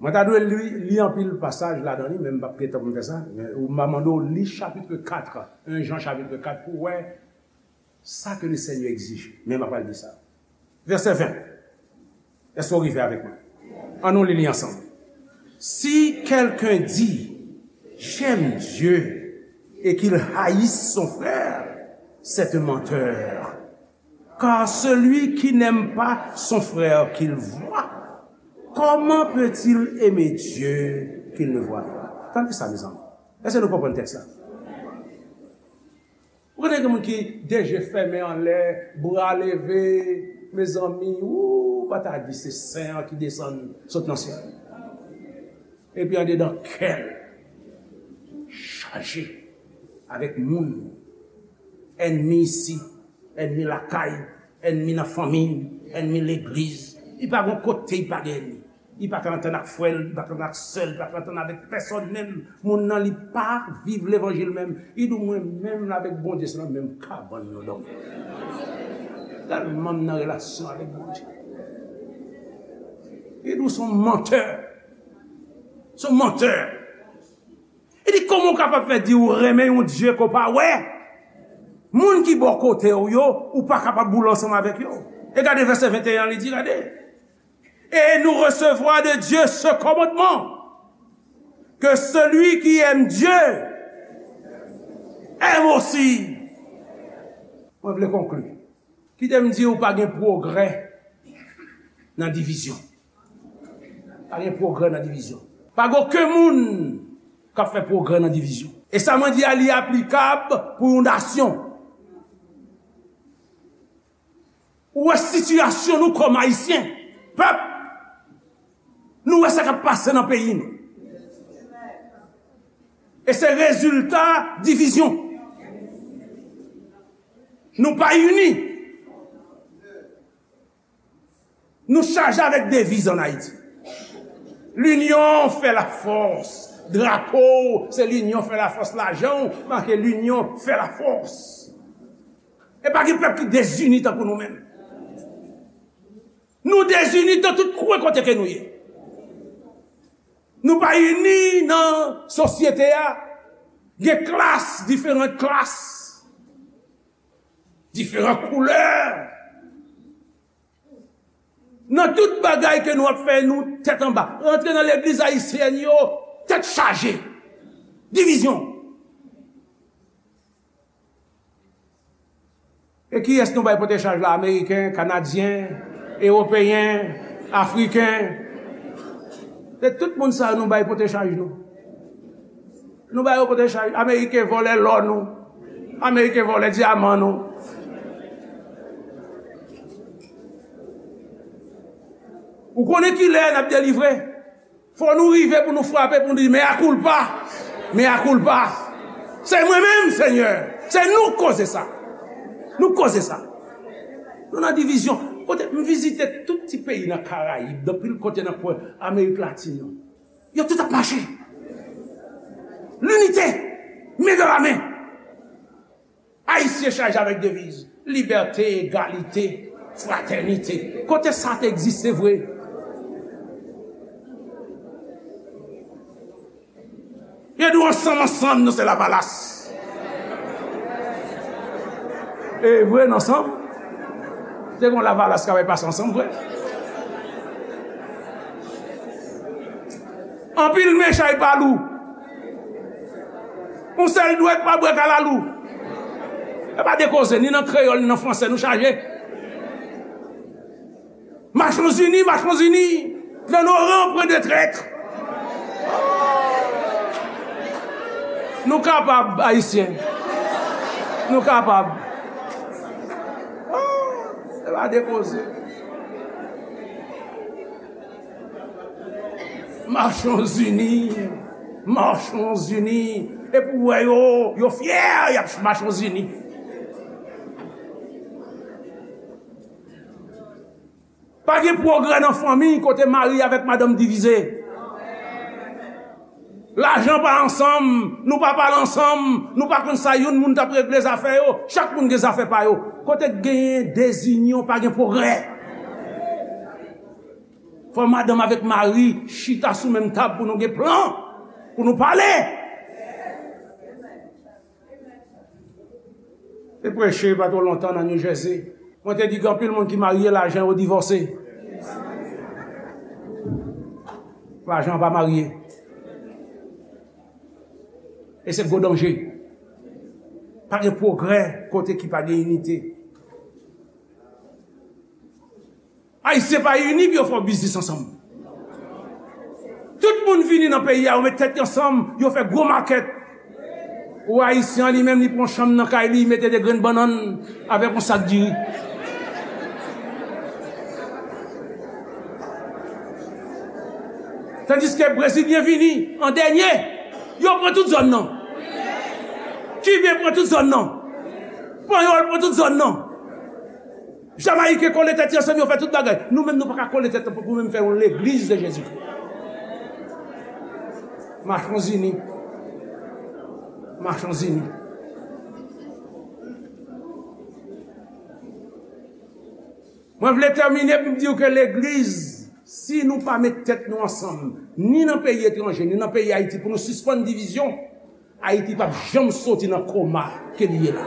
Mwen ta dwe li, li anpil pasaj ladan li, men m p ap gen tan pou m fè sa. Men ou m a mande w li chapitre quatre, en Jan chapitre quatre, pou w wè sa ke le Seigneur egzije. Men m ap pral di sa. Vèsè ven. Èske w rive avèk mwen? Ann nou li li ansanm. Si quelqu'un dit, j'aime Dieu, et qu'il haïsse son frère, c'est un menteur. Car celui qui n'aime pas son frère qu'il voit, comment peut-il aimer Dieu qu'il ne voit pas? Tande sa, mezanmi. Èske nou konprann tèks la? Ou konnen gen moun ki de je fèmen anlè, bra leve, mezanmi, ou pa ta di se sen an ki desann sot nan syèl. Epi andedan kè l chaje avèk moun, ènmi isit, ènmi lakay, ènmi nan fanmi, ènmi legliz. Li pa gon kote li pa gen ènmi. Li pa ka antann ak frè l, li pa ka antann ak sè l, li pa ka antann avèk pèsòn menm. Moun nan li pa viv levanjil menm. Li di w mwen menm avèk Bondye se nan menm kabann nou dòmi. Tèlman m nan relasyon avèk Bondye. Li di w se yon mantè. Se yon mantè. Li di kòman w kapab fè di w renmen yon Dye ke w pa wè? Moun ki bò kote w yo, ou pa kapab boule ansanm avèk yo. E gade vèsè venteyen an, li di, gade. Et nous recevons de Dieu ce commandement, que celui qui aime Dieu aime aussi. Mwen vle konkli. Kite m di w pa gen pwogrè nan divizyon. Pa gen pwogrè nan divizyon. Pa gen okenn moun k ap fè pwogrè nan divizyon. E sa mwen di a, li aplikab pou yon nasyon. Ou wè sitiyasyon nou kòm Ayisyen, pèp, nou wè sa k ap pase nan peyi nou. E se rezilta divizyon. Nou pa ini. Nou chaje avèk deviz ann Ayiti. L'union fait la force. Drapo w, se l'union fait la force. Lajan w make l'union fait la force. E pa gen pèp ki dezini tankou nou menm. Nou dezini nan tout kwen kote ke nou ye. Nou pa ini nan sosyete a. Gen klas, diferan klas, diferan koulè. Nan tout bagay ke nou ap fè, nou tèt anba. Rantre nan legliz ayisyèn yo, tèt chaje. Divizyon. E kiyès nou bay pote chaj la? Ameriken, Kanadyen, Ewopeyen, Afriken. Se tout moun sa yo nou bay pote chaj nou. Nou ba yo pote chaj. Ameriken vòlè lò nou. Ameriken vòlè dyaman nou. Ou konnen kilè n ap delivre? Fò nou rive pou nou frape, pou nou di, mea culpa. Mea culpa. Se mwen menm, Senyè. Se nou k koze sa. Nou k koze sa. Nou nan divizyon. Kote m vizite tout ti peyi nan Karayib, nan pil kote nan kwen Amerik Latin yo. Yo tout ap mache. Linite. Men nan la men. Ayisyen chaje avèk deviz libète, egalite, fratènite. Kote sa te egziste vre? Yo di w ansanm, ansanm, nou se Lavalas. E vre, n ansanm. Te gen Lavalas k ap pase ansanm, vre. Anpil men chay pa lou. Yon sèl dwèt pa bwè kalalou. E pa de koze, ni nan kreyòl, ni nan fransè, nou chaje. Marchons unis, marchons unis. Dans nos rangs, point de traître. Nou kapab, Ayisyen. Nou kapab. Se pa de koze. Marchons unis. Marchons unis. Epi w wè yo, yo fyè, y ap Marchons unis. Pa gen pwogrè nan fanmi kote mari avèk madanm divize. Lajan pa ansanm, nou pa pale ansanm, nou pa konn sa youn moun t ap regle zafè yo, chak moun gen zafè pa yo. Kote k genyen dezinyon, pa gen pwogrè. Fò madanm avèk mari chita sou menm tab pou nou gen plan, pou nou pale. Te preche pa twò lontan nan New Jersey. Mwen te di gen anpil moun ki marye, lajan yo divòse. Lajan pa marye. E se gwo danje. Pa gen pwogrè kote ki pa gen inite. Ayisyen pa ini pou yo fè yon biznis ansanm. Tout moun vini nan peyi a, yo met tèt yo ansanm, yo fè gwo makèt. Ou Ayisyen an, li menm, li pran chanm nan kay li, li mete de grenn bannann avèk yon sak diri. Tandiske Brezilyen vini an dènye, yo pran tout zòn nan. Kiben pran tout zòn nan. Panyòl pran tout zòn nan. Jamayiken kole tèt yo ansanm, yo fè tout bagay. Nou menm, nou pa ka kole tèt nou pou nou menm fè yon legliz de Jezikri. Marchons unis. Marchons unis. Mwen vle tèmine pou m di w ke legliz, si nou pa met tèt nou ansanm, ni nan peyi etranje, ni nan peyi Ayiti, pou nou sispann divizyon, Ayiti p ap janm soti nan koma ke li ye la.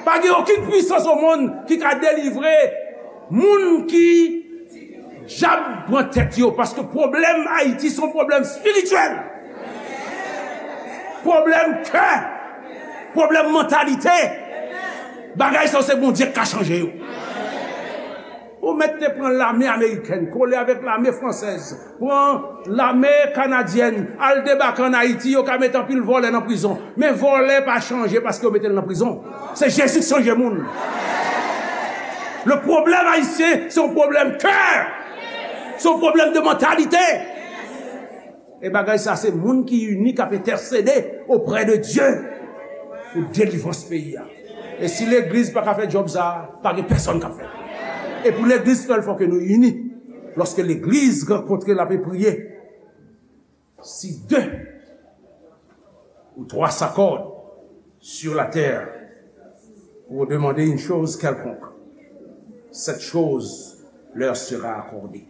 Pa gen okenn pwisans o monn ki ka delivre moun ki djab pran tèt yo, paske pwoblèm Ayiti se yon pwoblèm espirityèl. Pwoblèm kè, pwoblèm mantalite. Bagay sa yo se Bondye k ka chanje yo. Ou mèt te pran lame amerikèn, kole avèk lame fransèz, pran lame kanadyèn, al debake ann Ayiti, yo ka mete anpil vòlè nan prizon. Men vòlè pa chanje paske yo mete l nan prizon. Se Jezi k chanje moun. Le pwoblèm ayisyen, se yon pwoblèm kè. Se yon pwoblèm de mantalite. E bagay sa, se moun ki ini k ap entèsede oprè de Dye pou delivrans peyi a. E si legliz pa ka fè djòb sa, pa gen pèsonn k ap fè l. E pou legliz fè l, fò ke nou ini. Lòske legliz rankontre, l ape priye, si de ou twa s'accordent sur la terre pour demander une chose quelconque, cette chose leur sera accordée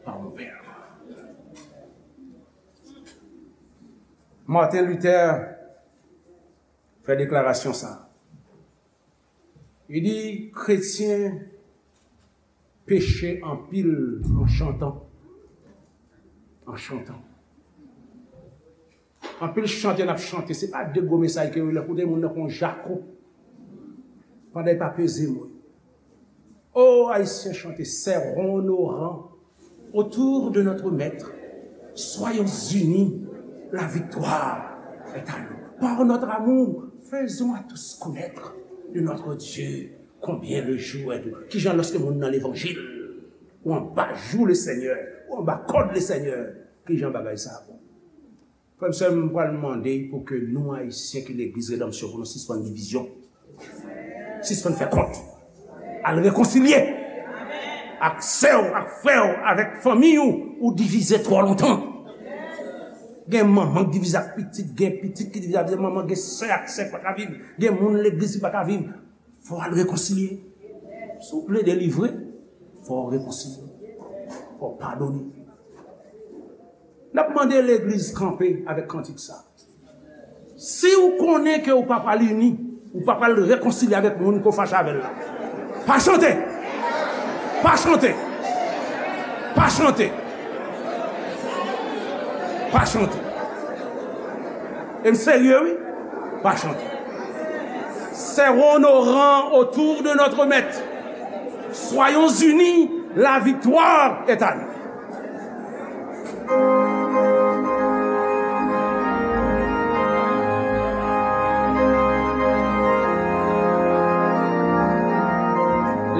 par mon Père. Martin Luther fè deklarasyon sa. Li di, kretyen peche anpil an chantan. An chantan. Anpil chante n ap chante, se pa de gwo mesaj ke yo lè koute moun nan kon jako. Pandan e pa peze mo. Oh, Haïtiens, chantez, serrons nos rangs autour de notre Maître. Soyons unis, la victoire est à nous. Par notre amour, faisons à tous connaître de notre Dieu combien le jour est doux. Kijan lòske moun nan levanjil, ou anba jou le Seigneur, ou anba kòd le Seigneur, kijan bagay sa bon. Frè m, sè m, m pral mande pou ke nou, Ayisyen ki legliz Redanmsyon, pou nou sispann divizyon. Sispann fè kont. Al rekonsilye ak sè w, ak frè w, avèk fanmi w. Ou divize twò lontan. Gen manman ki divize ak pitit, gen pitit ki divize ak manman, gen sè ak sè ki pa ka viv, gen moun legliz ki pa ka viv. Fò w al rekonsilye. Si w vle delivre, fò w rekonsilye. Fò w padone. N ap mande legliz kanpe avèk kantik sa. Si w konnen ke w pa pral ini, w pa pral rekonsilye avèk moun ke w fache avè l la, pa chante! Pa chante! Pa chante! Pa chante! E m serye, wi. Pa chante. Serrons nos rangs autour de notre maître. Soyons unis, la victoire est à nous.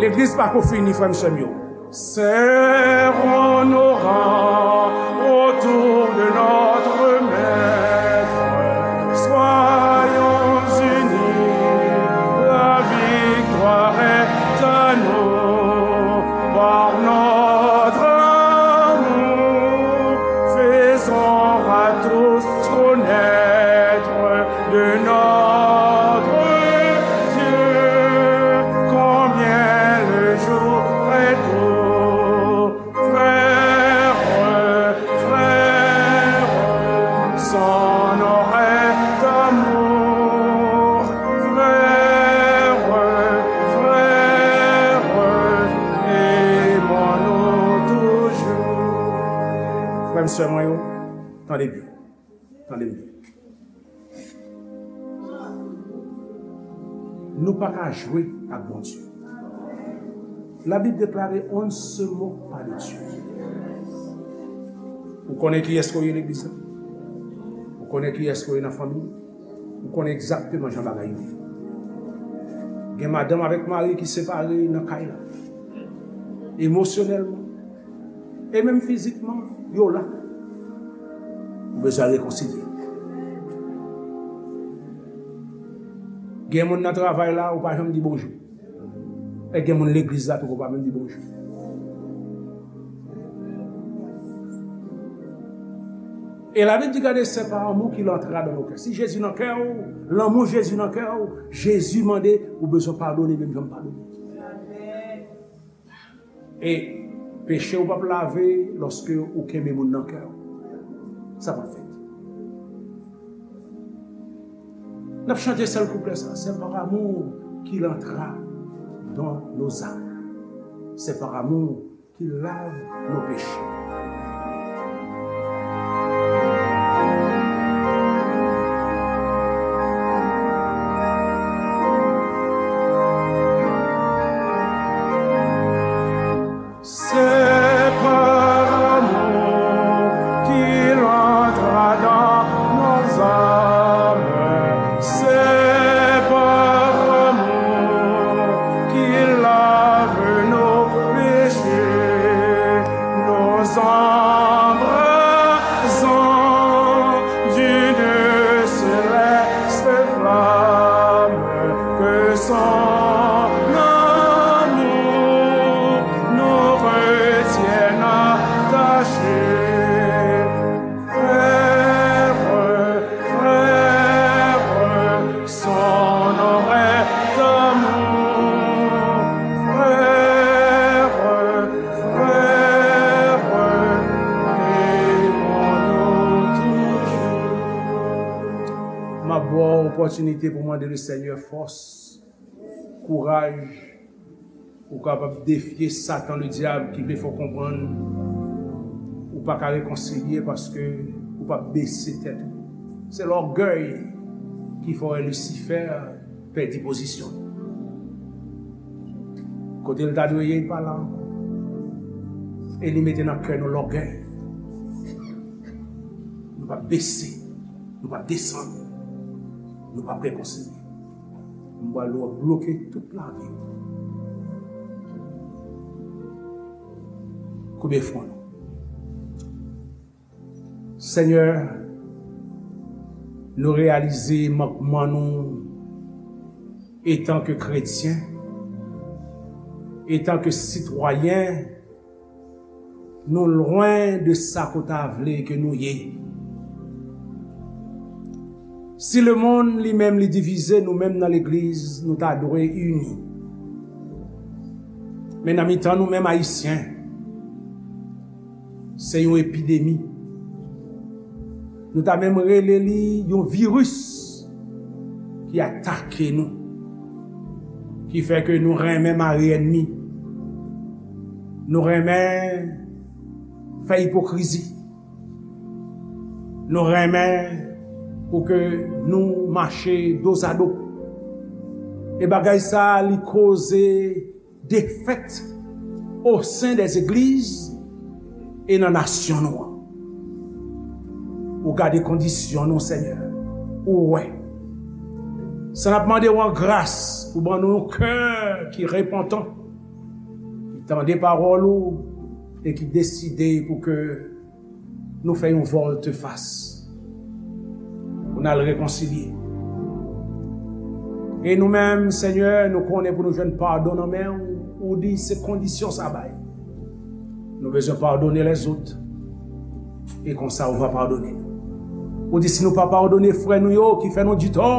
Legliz pa ko fini, frè m, sè m yo. Serrons nos rangs autour de notre maître. Soyons unis, la victoire est à nous. Par notre amour, faisons à tous connaître de notre Dieu combien le jour est doux. Frères, frères, sans nos rêves d'amour. Frères, frères, aimons-nous toujours. Frè m, sè mwen yo, tande byen. Tande m byen. Nou pa ka jwe ak Bondye. Labib deklare, on ne se moque pas de Dieu. Ou konnen kiyès ke w ye legliz la? Ou konnen kiyès ke w ye nan fanmi? Ou konnen egzakteman jan bagay yo ye. Gen madanm avèk mari ki separe nan kay la. Emosyonèlman. E menm fizikman, yo la. Ou bezwen rekonsilye. Gen moun nan travay la, ou pa janm di bonjou. E gen moun legliz la tou, ou pa menm di bonjou. E Labib di, gade, c'est par amour qu'il entra dans nos cœurs. Si Jezi nan kè w, lanmou Jezi nan kè w, Jezi mande ou bezwen padone menm jan m padone. E peche w p ap lave lòske ou kenbe moun nan kè w. Sa p ap fèt. N ap chante sèl kouplè sa. C'est par amour qu'il entra dans nos âmes. C'est par amour qu'il lave nos péchés. C'est par amour qu'il entra dans nos âmes. C'est par amour qu'il lave nos péchés. Nous embrasons d'une céleste flamme que son amour nous retienne attachés. Frères, frères, sans nos rêves d'amour. Frères, frères, aimons-nous toujours. M ap ba w opòtinite pou mande le Senyè fòs, kouraj, ou kapab defye Satan, ledyab, ki vle fè w konprann ou pa ka rekonsilye paske ou pa bese tèt ou. Se lògèy ki fè w wè Lisifè pèdi pozisyon l. Kote l ta dwe ye, l pa la ankò. E li mete nan kè nou lògèy. Nou pa bese, nou pa desann, nou pa rekonsilye. M pral bloke tout lavi w. Koube fwon nou. Senyè, Nou reyalize mankman nou etan ke kretyen, etan ke sitwayen, nou lwen de sa ke w ta vle ke nou ye. Si lemonn li menm li divize, nou menm nan legliz, nou ta dwe ini. Men nan mitan nou menm Ayisyen, se yon epidemi. Nou ta menm rele li yon viris ki atake nou, ki fè ke nou renmen mare ènmi. Nou renmen fè ipokrizi. Nou renmen pou ke nou mache dozado. E bagay sa a, li koze defèt o sen dè zegliz e nan nasyon nou an. Ou gade kondisyon nou, Senyè. Ou wè. Sa n ap mande w an gras pou ban nou yon kè ki repantan, ki tande pawòl ou e ki deside pou ke nou fè yon vòltefas, pou n al rekonsilye. E nou menm, Senyè, nou konnen pou nou jwenn padon nan men w, ou di se kondisyon sa bay. Nou bezwen padone lèzòt. E konsa, ou va padone nou. Ou di si nou pa padone frè nou yo ki fè nou ditò,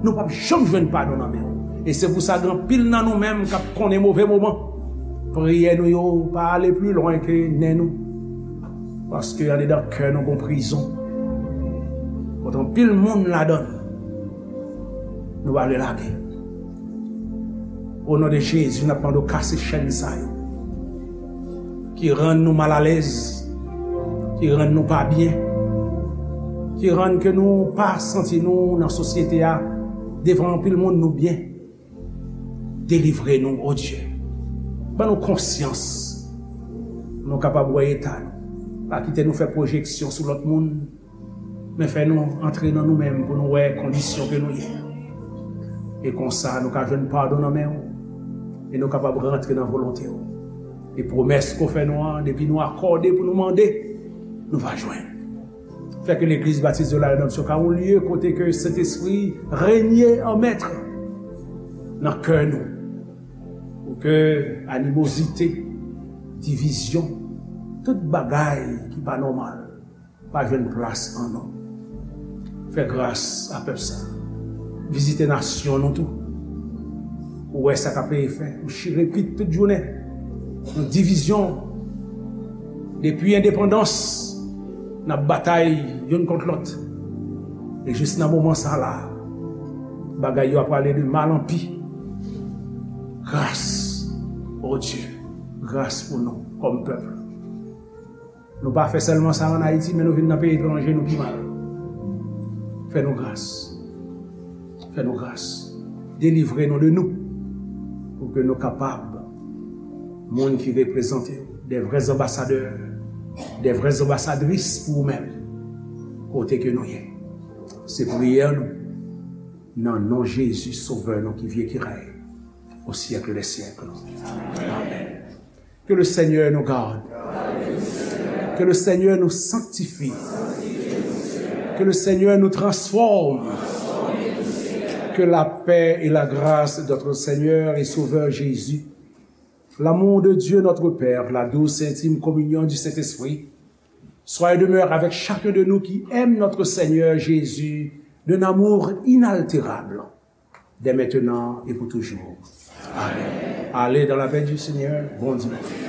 nou p ap janm jwenn padon nan men w. E se pou sa, gen anpil nan nou menm k ap konnen move moman. Priyè nou yo pa ale pli lwen ke nen nou. Paske andedan kè nou gon prizon. Kote anpil moun ladan l, nou pa vle lage. O non de Jezi, n ap mande w kase chèn sa yo ki rann nou malalèz, ki rann nou pa byen, ki rann ke nou pa santi nou nan sosyete a, devan anpil moun nou byen. Delivre nou, o Dye. Ban nou konsyans pou nou kapab wè eta nou. Pa kite nou fè pwojeksyon sou lòt moun, men fè nou antre nan nou menm pou nou wè kondisyon ke nou ye. E konsa, nou ka jwenn padon nan men w, e nou kapab rantre nan volonte w. E pwomès ke w fè nou an, depi nou akòde pou nou mande, nou va jwenn. Fè ke legliz Batis de la Redanmsyon ka yon lye kote ke Sentespri renye an mèt nan kè nou. Pou ke animozite, divizyon, tout bagay ki pa nòmal, pa jwenn plas an nou. Fè gras a pèp sa. Vizite nasyon nou tou. Ou wè sa k ap fè. Ou chire pit tout jounen. Yon divizyon. Depi endepandans, n ap batay youn kont lòt. E jis nan moman sa la, bagay yo ap prale de mal an pi. Gras, o Dye, gras pou nou kòm pèp. Nou pa fè sèlman sa ann Ayiti, men nou vin nan peyi etranje, nou pi mal. Fè nou gras. Fè nou gras. Delivre nou de nou. Pou ke nou kapab, moun ki reprezante w, de vrè anbasadè, de vrè anbasadris pou ou menm, kote ke nou ye. Se priyè nou, nan non Jezi, Sovè nou, ki viv, ki rèy, au siècle des siècles. Amen. Que le Seigneur nous garde. Que le Seigneur nous sanctifie. Que le Seigneur nous transforme. Que la paix et la grâce de notre Seigneur et Sauveur Jésus, l'amour de Dieu notre Père, la douce et intime communion du Saint-Esprit, soit et demeure avec chacun de nous qui aime notre Seigneur Jésus d'un amour inaltérable, dès maintenant et pour toujours. Amen. Allez dans la paix du Seigneur. Bon dimanche.